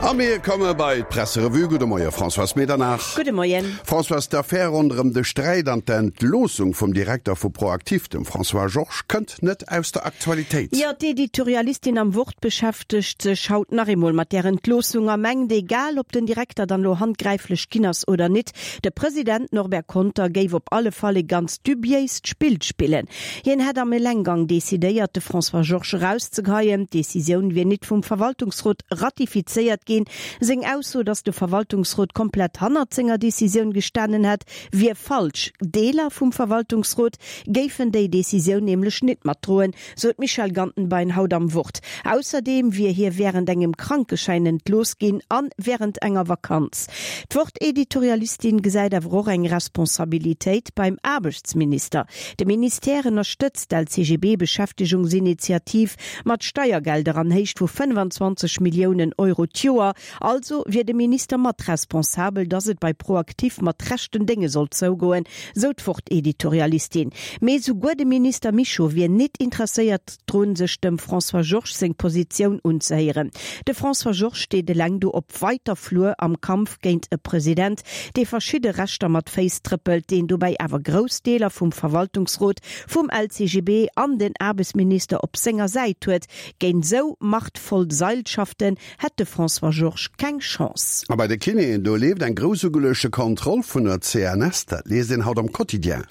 A mir komme bei d'Presserevue. Gudde Moie Françoise Medernach. Gudde Moien. Françoise, d'Affär ronderëm de Sträit an d'Entloossung vum Direkter vu ProActif, dem François Georges, kënnt net aus der Aktualitéit. Jo, d'Editorialistin am Wort beschäftegt sech haut nach eemol mat där Entloossung a mengt, egal ob den Direkter dann elo handgräiflech ginn ass oder nit, de President Norbert Conter géif op alle Fall e ganz dubiéist Spill spillen. Hien hätt am Elenggang decidéiert, de François Georges erauszegeheien. D'Decisioun wier nit vum Verwaltungsrot ratifizéiert ginn. Seng Ausso, datt de Verwaltungsrot komplett hannert senger Decisioun gestanen hätt, wier falsch. Deeler vum Verwaltungsrot géifen déi Decisioun nämlech nit matdroen, sou d'Michèle Gantenbein haut am Wort. Ausserdeem wier hie wärend engem Krankeschäin entlooss ginn an wärend enger Vakanz. D'Wort-Editorialistin gesäit awer och eng Responsabilitéit beim Aarbechtsminister. De Ministère ënnerstëtzt d'LCGB-Beschäftegungsinitiativ mat Steiergelder an Héicht vu 25 Milliounen Euro d'Joer. Also wier de Minister mat responsabel, datt et bei ProActif mat rechten Dénge sollt zougoen, sou d'Wort-Editorialistin. Mee souguer de Minister Mischo wier nit interesséiert drun, sech dem François Georges seng Positioun unzehéieren. De François Georges steet eleng do op weiter Flur am Kampf géint e President, dee verschidde Rechter mat Féiss trëppelt, deen dobäi awer grouss Deeler vum Verwaltungsrot, vum LCGB an den Aarbechtsminister op senger Säit huet. Géint esou machtvoll Seilschaften hätt de François Georges keng Chance. A bei de Kinéen, do leeft eng grouss ugeluechte Kontroll vun der CNS. Dat liest een haut am Quotidien.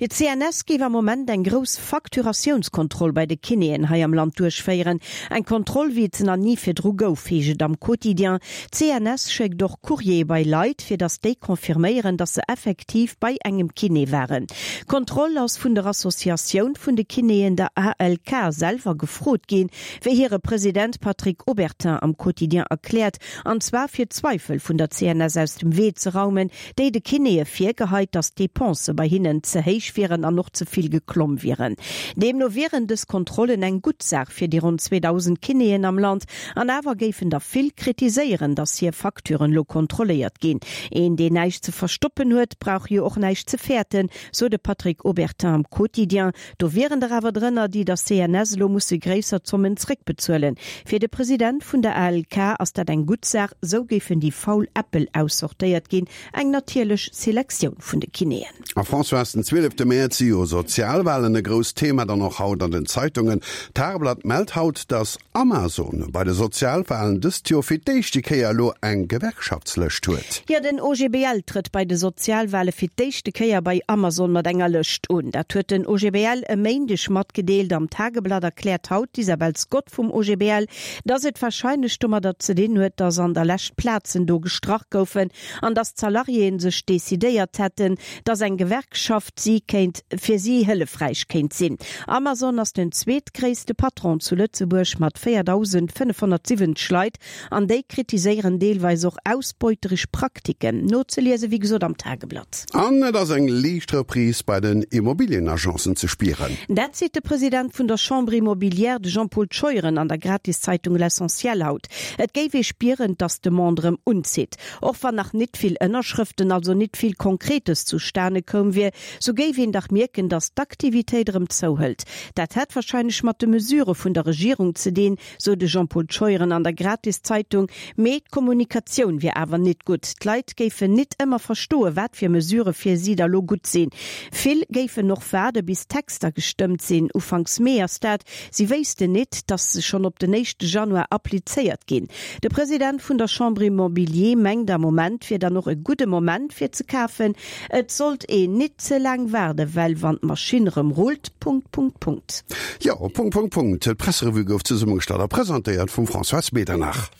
D'CNS géif am Moment eng grouss Facturatiounskontroll bei de Kinéen hei am Land duerchféieren. Eng Kontroll, wéi et se nach ni virdru gouf, heescht et am Quotidien. D'CNS schéckt och Courriere bei Leit, fir datt déi confirméieren, datt se effektiv bei engem Kiné waren. D'Kontroll ass vun der Associatioun vun de Kinéen, der ALK, selwer gefrot ginn, wéi hire President Patrick Obertin am Quotidien erkläert, an zwar fir d'Zweifel vun der CNS aus dem Wee ze raumen, déi de Kinéë virgeheit, datt d'Depensë bei hinnen ze héich wieren an och ze vill geklomm wieren. Deemno wieren dës Kontrollen eng gutt Saach fir déi ronn 2.000 Kinéen am Land. An awer géifen der vill kritiséieren, datt hir Facturen elo kontrolléiert ginn. Een, deen näischt ze verstoppen huet, brauch jo och näischt ze fäerten, sou de Patrick Obertin am Quotidien. Do wieren der awer drënner, déi der CNS elo musse gréisser Zommen zréckbezuelen. Fir de President vun der ALK ass dat eng gutt Saach, sou géifen déi faul Äppel aussortéiert ginn, eng natierlech Selektioun vun de Kinéen. A Françoise, den 12 Mäerz si jo Sozialwahlen e grousst Thema, dann och haut an den Zeitungen. D'Tageblatt mellt haut, datt Amazon bei de Sozialwahlen dëst Joer fir d'éischte Kéier elo eng Gewerkschaftslëscht huet. Jo, den OGBL trëtt bei de Sozialwahle fir d'éischte Kéier bei Amazon mat enger Lëscht un. Dat huet den OGBL e Méindeg matgedeelt. Am Tageblatt erkläert haut d'Isabel Scott vum OGBL, datt et warscheinlech domadder ze dinn huet, datt an der Lescht Plazen do gestrach goufen an datt d'Salariéen sech decidéiert hätten, datt eng Gewerkschaft si kéint fir si hëllefräich kéint sinn. Amazon ass den zweetgréisste Patron zu Lëtzebuerg mat 4.570 Leit an déi kritiséieren deelweis och ausbeuteresch Praktiken. Nozeliese wéi gesot am Tageblatt. An et ass eng liicht Reprise bei den Immobilienagencen ze spieren. Dat seet de President vun der Chambre immobilière, de Jean-Paul Scheuren an der Gratiszeitung L'Essentiel haut. Et géif ee spieren, datt d'Demande erëm unzitt. Och wann nach nit vill Ënnerschrëften, also nit vill Konkretes zustane koum wier, sou géif een dach mierken, datt d'Aktivitéit erëm zouhëlt. Dat hätt wahrscheinlech mat de Mesure vun der Regierung ze dinn, sou de Jean-Paul Scheuren an der Gratiszeitung. Mee d'Kommunikatioun wier awer nit gutt. D'Leit géifen nit ëmmer verstoen, wat fir Mesure fir si da lo gutt sinn. Vill géifen och waarde bis d'Texter gestëmmt sinn, ufanks Mee ass dat. Si wéissten nit, datt se schonn op den éischte Januar applizéiert ginn. De President vun der Chambre Immobilier mengt, am Moment wier dann och e gudde Moment fir ze kafen. Et sollt een nit ze laang waarden, well wann d'Maschinn rëm rullt, Punkt, Punkt, Punkt. Jo, Punkt, Punkt, Punkt. D'Presserevue gouf zesummegestallt a presentéiert vum Françoise Medernach.